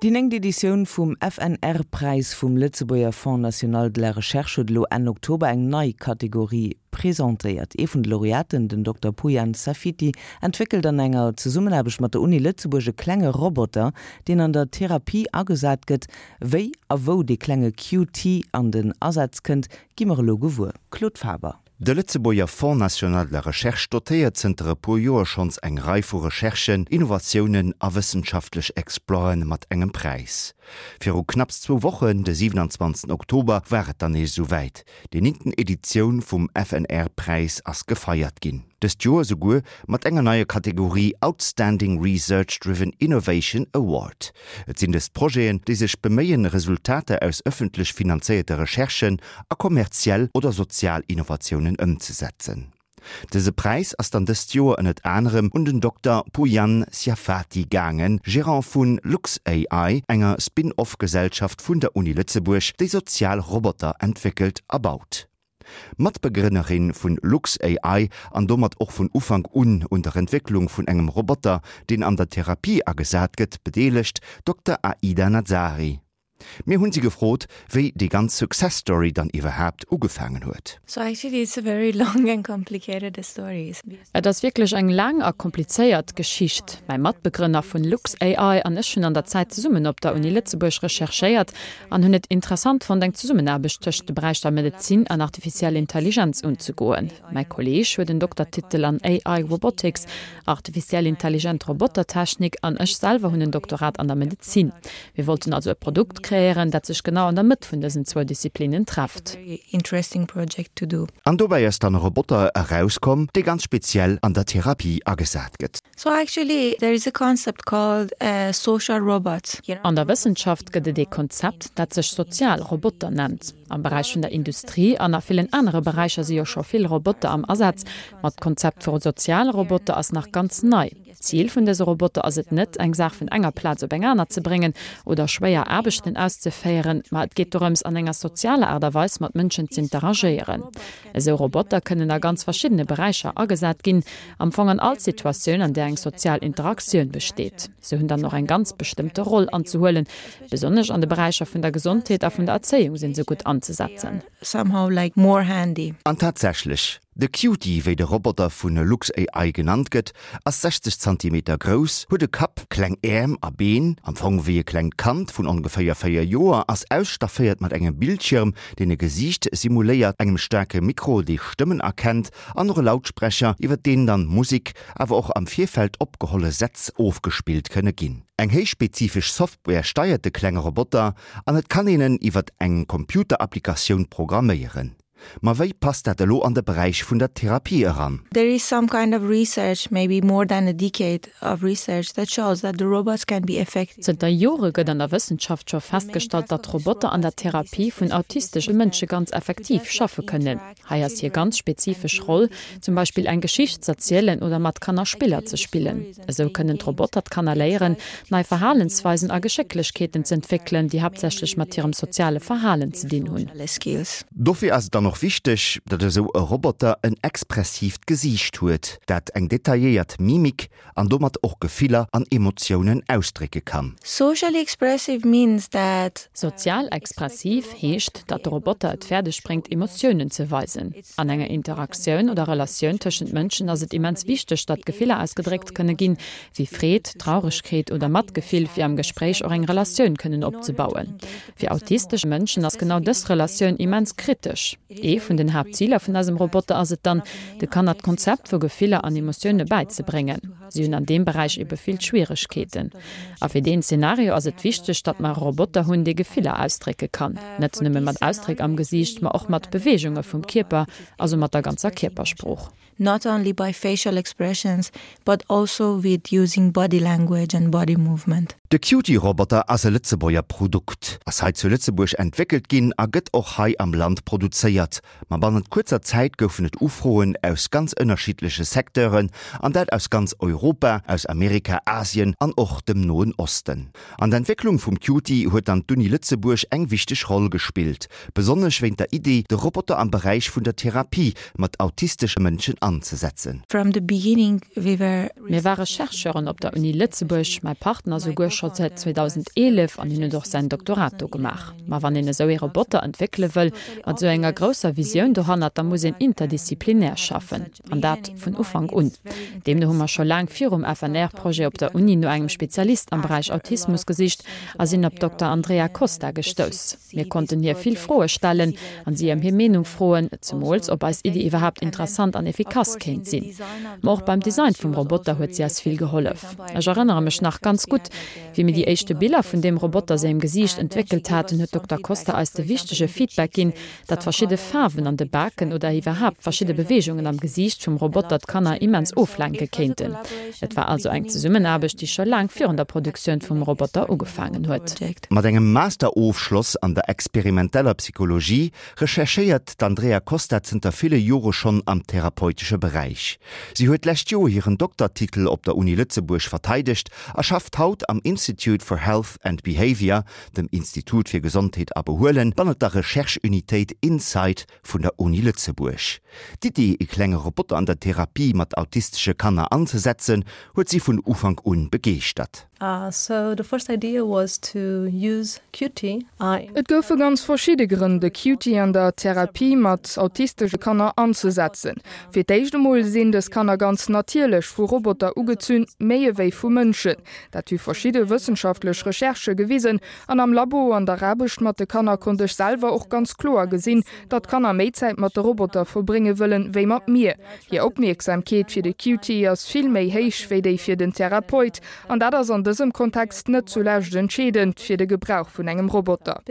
Déi néngt Editioun vum FNR-Präis vum Lëtzebuerger Fonds national de la recherche huet elo Enn Oktober eng nei Kategorie presentéiert. Ee vun de Laureaten, den Dokter Pouyan Safiti, entwéckelt an enger Zesummenaarbecht mat der Uni Lëtzebuerg e klenge Roboter, deen an der Therapie agesat gëtt. Wéi a wou dee klenge QT an den Asaz kënnt, gi mer elo gewuer. Claude Faber. De Lëtzebuerger Fonds national de la recherche dotéiert zënter e puer Joer schonns eng Rei vu Recherchen, Innovatiounen a wëssenschaftlech Exploiten mat engem Präis. Viru knapps zwou Wochen, de 27 Oktober, war et dann nees esou wäit, Déi néngten Editioun vum FNR-Präis ass gefeiert ginn. Dëst Joer souguer mat enger neier Kategorie Outstanding Research Driven Innovation Award. Et sinn dëst Projeten, déi sech beméien, Resultater aus ëffentlech finanzéierte Recherchen a kommerziell oder sozial Innovatiounen ëmzesetzen. Dëse Präis ass dann dëst Joer ënnert anerem un den Dokter Pouyan Siafati gaangen, Gerant vu LuxAI, enger Spin-off-Gesellschaft vun der Uni Lëtzebuerg, déi sozial Roboter entwéckelt a baut. Matbegrënnerin vun LuxAI an domat och vun Ufank un un der Entwécklung vun engem Roboter, deen an der Therapie agesat gëtt, bedeelegt, Dokter Aida Nazari. Mir hunn si gefrot, wéi déi ganz Success Story dann iwwerhaapt ugefaangen huet. So actually it's a very long and complicated story. Et ass wierklech eng laang a komplizéiert Geschicht. Mäi Matbegrënner vun LuxAI an ech hunn an der Zäit zesummen op der Uni Lëtzebuerg recherchéiert an hunn et interessant fonnt eng Zesummenaarbecht tëscht de Beräicher Medezin an artificiell Intelligenz unzegoen. Mäi Kolleeg huet en Doktertitel an AI Robotics, artificiell intelligent Robotertechnik, an ech selwer hunn en Doktorat an der Medezin. Mir wollten also e Produkt kreéieren, dat sech genau an der Mëtt vun dësen zwou Disziplinnen trefft. An dobäi ass dann e Roboter erauskomm, dee ganz speziell an der Therapie agesat gëtt. An der Wëssenschaft gëtt et ee Konzept, dat sech sozial Roboter nennt. Am Beräich vun der Industrie an a villen anere Beräicher si jo scho vill Roboter am Asaz, ma d'Konzept vu soziale Roboter ass nach ganz nei. D'Zil vun dëse Roboter ass et net, eng Saach vun enger Plaz op eng aner ze bréngen oder schwéier Aarbechten auszeféieren, ma et geet dorëms, an enger sozialer Aart a Weis mat Mënschen z'interagéieren. Esou Roboter kënnen a ganz verschiddene Beräicher agesat ginn, am Fong an all Situatioun, an där eng sozial Interaktioun besteet. Se hunn dann och eng ganz bestëmmte Roll anzehuelen, besonnesch an de Beräicher vun der Gesondheet a vun der Erzéiung sinn se gutt anzesetzen. An tatsächlech, De Cutie, wéi de Roboter vu LuxAI genannt gëtt, ass 60 Zantimeter grouss, huet e Kapp, kleng Äerm a Been, am Fong wéi e klengt Kand vun ongeféier 4 Joer, ass ausstafféiert mat engem Bildschirm, deen e Gesiicht simuléiert, engem staarke Mikro, dee Stëmmen erkennt, an och e Lautsprecher, iwwer deen dann Musek, awer och am Virfeld opgeholle Sätz ofgespillt kënne ginn. Eng héichspezifesch Software steiert de klenge Roboter an et kann een en iwwer eng Computerapplikatioun programméieren. Ma wéi passt dat elo an de Beräich vun der Therapie eran? There is some kind of research, maybe more than a decade of research, that shows that the robots can be effective. Zënter Jore gëtt an der Wëssenschaft scho festgestallt, datt Roboter an der Therapie vun autistesche Mënsche ganz effektiv schaffe kënnen. Hei ass hir ganz spezifesch Roll, zum Beispill eng Geschicht z'erzielen oder mat Kanner Spiller ze spillen. Esou kënnen d'Roboter d'Kanner léieren, nei Verhalensweisen a Geschécklechkeeten z'entwéckelen, déi haaptsächlech mat hirem soziale Verhalen ze dinn hunn. Dofir ass et dann och wichteg, datt esou e Roboter en expressiivt Gesiicht huet, dat eng detailléiert Mimik an domat och Gefiller an Emotiounen ausdrécke kann. Socially expressive means that. Sozial expressiv heescht, datt de Roboter et fäerdeg bréngt, Emotiounen ze weisen. An enger Interaktioun oder Relatioun tëschent Mënschen ass et immens wichteg, datt Gefiller ausgedréckt kënne ginn, wéi Freed, Trauregkeet oder Matgefill, fir am Gespréich och eng Relatioun kënnen opzebauen. Fir autistesch Mënschen ass genau dës Relatioun immens kritesch. Ee vun den Haaptziler vun eisem Roboter ass et dann, de Kanner d'Konzept vu Gefiller an Emotioune bäizebréngen. Si hunn an deem Beräich ebe vill Schwieregkeeten. A fir deen Zenario ass et wichteg, datt mer e Roboter hunn, dee Gefiller ausdrécke kann. Net nëmme mat Ausdréck am Gesiicht, ma och mat Beweegunge vum Kierper, also mat der ganzer Kierpersprooch. Not only by facial expressions, but also with using body language and body movement. De Cutie-Roboter ass e Lëtzebuerger Produkt, ass hei zu Lëtzebuerg entwéckelt ginn a gëtt och hei am Land produzéiert. Ma bannent kuerzer Zäit goufen et Ufroen aus ganz ënnerschiddleche Secteuren, an dat aus ganz Europa, aus Amerika, Asien an och dem Noen Osten. An der Entwécklung vum Cutie huet dann d'Uni Lëtzebuerg eng wichteg Roll gespillt, besonnesch wéint der Iddi, de Roboter am Beräich vun der Therapie mat autistesche Mënschen anzesetzen. From the beginning we were. Mir ware Chercheuren op der Uni Lëtzebuerg, mäi Partner souguer. scho säit 2011 an hien huet och säin Doktorat do gemaach. Ma wann een esou ee Roboter entwéckele wëll, mat esou enger grousser Visioun dohannert, da muss een interdisziplinär schaffen. An dat vun Ufank un. Deemno hu mer scho laang virum FNR-Projet op der Uni no engem Spezialist am Beräich Autismus gesicht a sinn op d'Dokter Andrea Costa gestouss. Mir konnten hir vill Froe stellen an si ëm hir Meenung froen, zemools ob eis Iddi iwwerhaapt interessant an efficace kéint sinn. Ma och beim Design vum Roboter huet si eis vill gehollef. Ech erënnere mech nach ganz gutt, wéi mir déi éischte Biller vun deem Roboter sengem Gesiicht entwéckelt haten, huet d'Dokter Costa eis de wichtege Feedback ginn, datt verschidde Faarwen an de Baken oder iwwerhaapt verschidde Beweegungen am Gesiicht vum Roboter d'Kanner immens oflenke kéinten. Et war also eng Zesummenaarbecht, déi scho laang virun der Produktioun vum Roboter ugefaangen huet. Mat engem Masterofschloss an der experimenteller Psychologie recherchéiert d'Andrea Costa zënter ville Jore schonn am therapeutesche Beräich. Si huet d'lescht Joer hiren Doktertitel op der Uni Lëtzebuerg verteidegt a schafft haut am Institute for Health and Behaviour, dem Institut fir Gesondheet a Behuelen, bannert der Recherche-Unitéit Insight vun der Uni Lëtzebuerg. D'Iddi, e klenge Roboter an der Therapie mat autistesche Kanner anzesetzen, huet si vun Ufank un begeeschtert. Et goufe ganz verschidde Grënn, de Cutie an der Therapie mat autistesche Kanner anzesetzen. Fir d'éischt emol sinn dës Kanner ganz natierlech vu Roboter ugezunn, méi ewéi vu Mënschen. Dat hu verschidde wëssenschaftlech Recherchë gewisen. An am Labo an der Aarbecht mat de Kanner konnt ech selwer och ganz kloer gesinn, datt d'Kanner méi Zäit mat de Roboter verbrénge wëllen, wéi mat mir. Hir Opmierksamkeet fir de Cutie ass vill méi héich wéi déi fir den Therapeut. An dat ass an dësem Kontext net zulescht entscheedend fir de Gebrauch vun engem Roboter.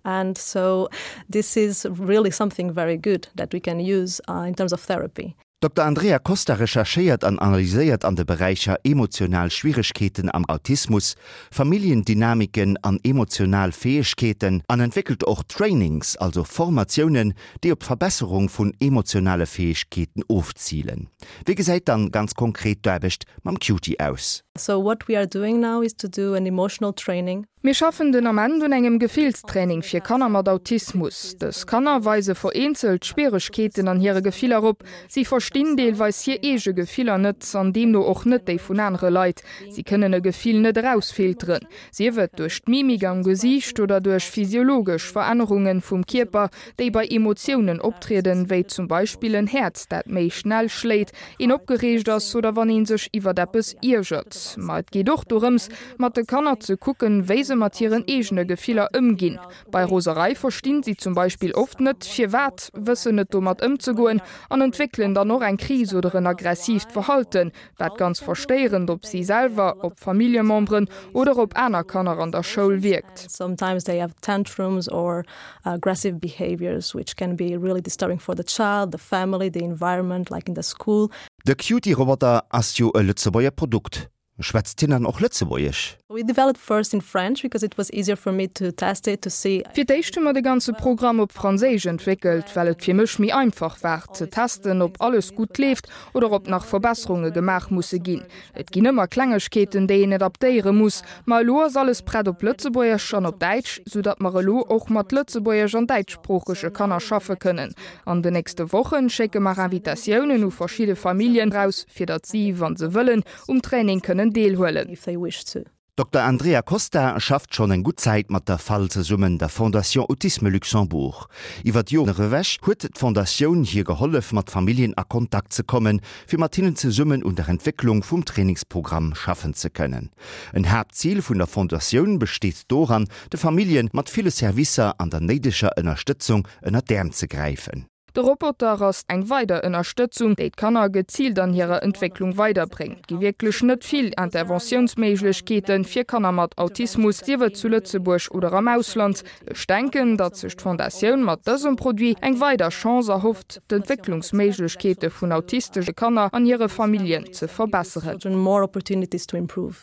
And so this is really something very good that we can use in terms of therapy. D'Dokter Andrea Costa recherchéiert an analyséiert an de Beräicher emotional Schwieregkeeten am Autismus, Familljendynamiken an emotional Fäegkeeten an entwéckelt och Trainings, also Formatiounen, déi op d'Verbesserung vun emotionale Fäegkeeten ofzilen. Wéi gesäit dann ganz konkret d'Aarbecht mam Cutie aus? So what we are doing now is to do an emotional training. Mir schaffen den Ament un engem Gefillstraining fir Kanner mat Autismus. Dës Kanner weise vereenzelt Schwieregkeeten an hire Gefiller op. Si verstinn deelweis hir eege Gefiller net an deemno och net déi vun anere Leit. Si kënnen e Gefill net erausfilteren, sief et duerch d'Mimik am Gesiicht oder duerch physiologesch Verännerunge vum Kierper, déi bei Emotiounen optrieden, wéi zum Beispill en Häerz, dat méi schnell schléit, een opgereegt ass oder wann ee sech iwwert eppes iergert. Ma et geet och dorëms, mat de Kanner ze kucken, wéi se mat hiren eegene Gefiller ëmginn. Bei Roserei verstinn si zum Beispill oft net, firwat, wëssen net domat ëmzegoen an entwéckelen dann och eng Kris oder en aggressiivt Verhalten, wat ganz verstéierend op si selwer, op Familljememberen oder op aner Kanner an der Schoul wierkt. Sometimes they have tantrums or aggressive behaviors which can be really disturbing for the child, the family, the environment like in the school. De Cutie-Roboter ass jo e Lëtzebuerger Produkt. Schwätzt hien dann och Lëtzebuergesch? We developed first in French because it was easier for me to test it, to see. Fir d'éischt hu mer de ganze Programm op Franséisch entwéckelt, well et fir mech méi einfach war, ze testen, ob alles gutt leeft oder ob nach Verbesserunge gemaach musse ginn. Et ginn ëmmer Klengegkeeten, déi een adaptéiere muss, ma elo ass alles prett op Lëtzebuergesch an op Däitsch, soudatt mer elo och mat lëtzebuergesch an däitschsproochege Kanner schaffe kënnen. An den nächste Wochen schécke mer Invitatiounen u verschidde Familljen raus, fir datt si, wa se wëllen, um Training kënnen deelhuelen. D'Dokter Andrea Costa schafft schonn eng gutt Zäit mat der fal zesummen, der Fondation Autisme Luxembourg. Iwwer d'Joren ewech huet d'Fondatioun hir gehollef, mat Familljen a Kontakt ze kommen, fir mat hinnen zesummen un der Entwécklung vum Trainingsprogramm schaffen ze kënnen. En Haaptzil vun der Fondatioun besteet doran, de Famillje mat ville Servicer an der néideger Ënnerstëtzung ënner d'Äerm ze gräifen. De Roboter ass eng weider Ënnerstëtzung, déi d'Kanner geziilt an hirer Entwécklung weiderbréngt. Et gi wierklech net vill Interventiounsméiglechkeete fir Kanner mat Autismus, sief et zu Lëtzebuerg oder am Ausland. Ech denken, datt sech d'Fondatioun mat dësem Produit eng weider Chance erhofft, d'Entwécklungsméiglechkeete vun autistesche Kanner an hire Familljen ze verbesseren.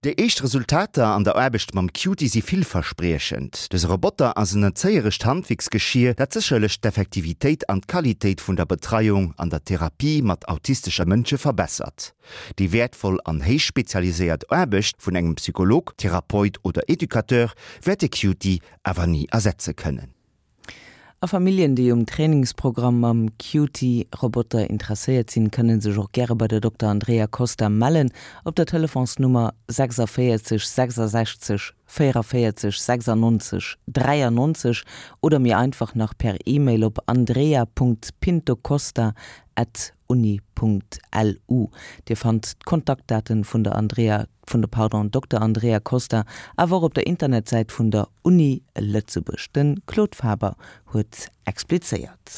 Déi éischt Resultater an der Aarbecht mam Cutie si villverspriechend. Dëse Roboter ass en erzéierescht Handwierksgeschier, dat sécherlech d'Effektivitéit an d'Qualitéit vun der Betreiung an der Therapie mat autistesche Mënsche verbessert. Déi wäertvoll an héich spezialiséiert Aarbecht vun engem Psycholog, Therapeut oder Educateur wäert de Cutie awer ni ersetze kënnen. A Familljen, déi um Trainingsprogramm mam Cutie-Roboter interesséiert sinn, kënne sech och gäre bei der Dokter Andrea Costa mellen op der Telefonsnummer 46 66 44 96 93 oder méi einfach nach per E-Mail op andrea.pintocosta at uni.lu. Dir fannt d'Kontaktdaten vun der Andrea, vun der, pardon, Dokter Andrea Costa awer och op der Internetsäit vun der Uni Lëtzebuerg. De Claude Faber huet explizéiert.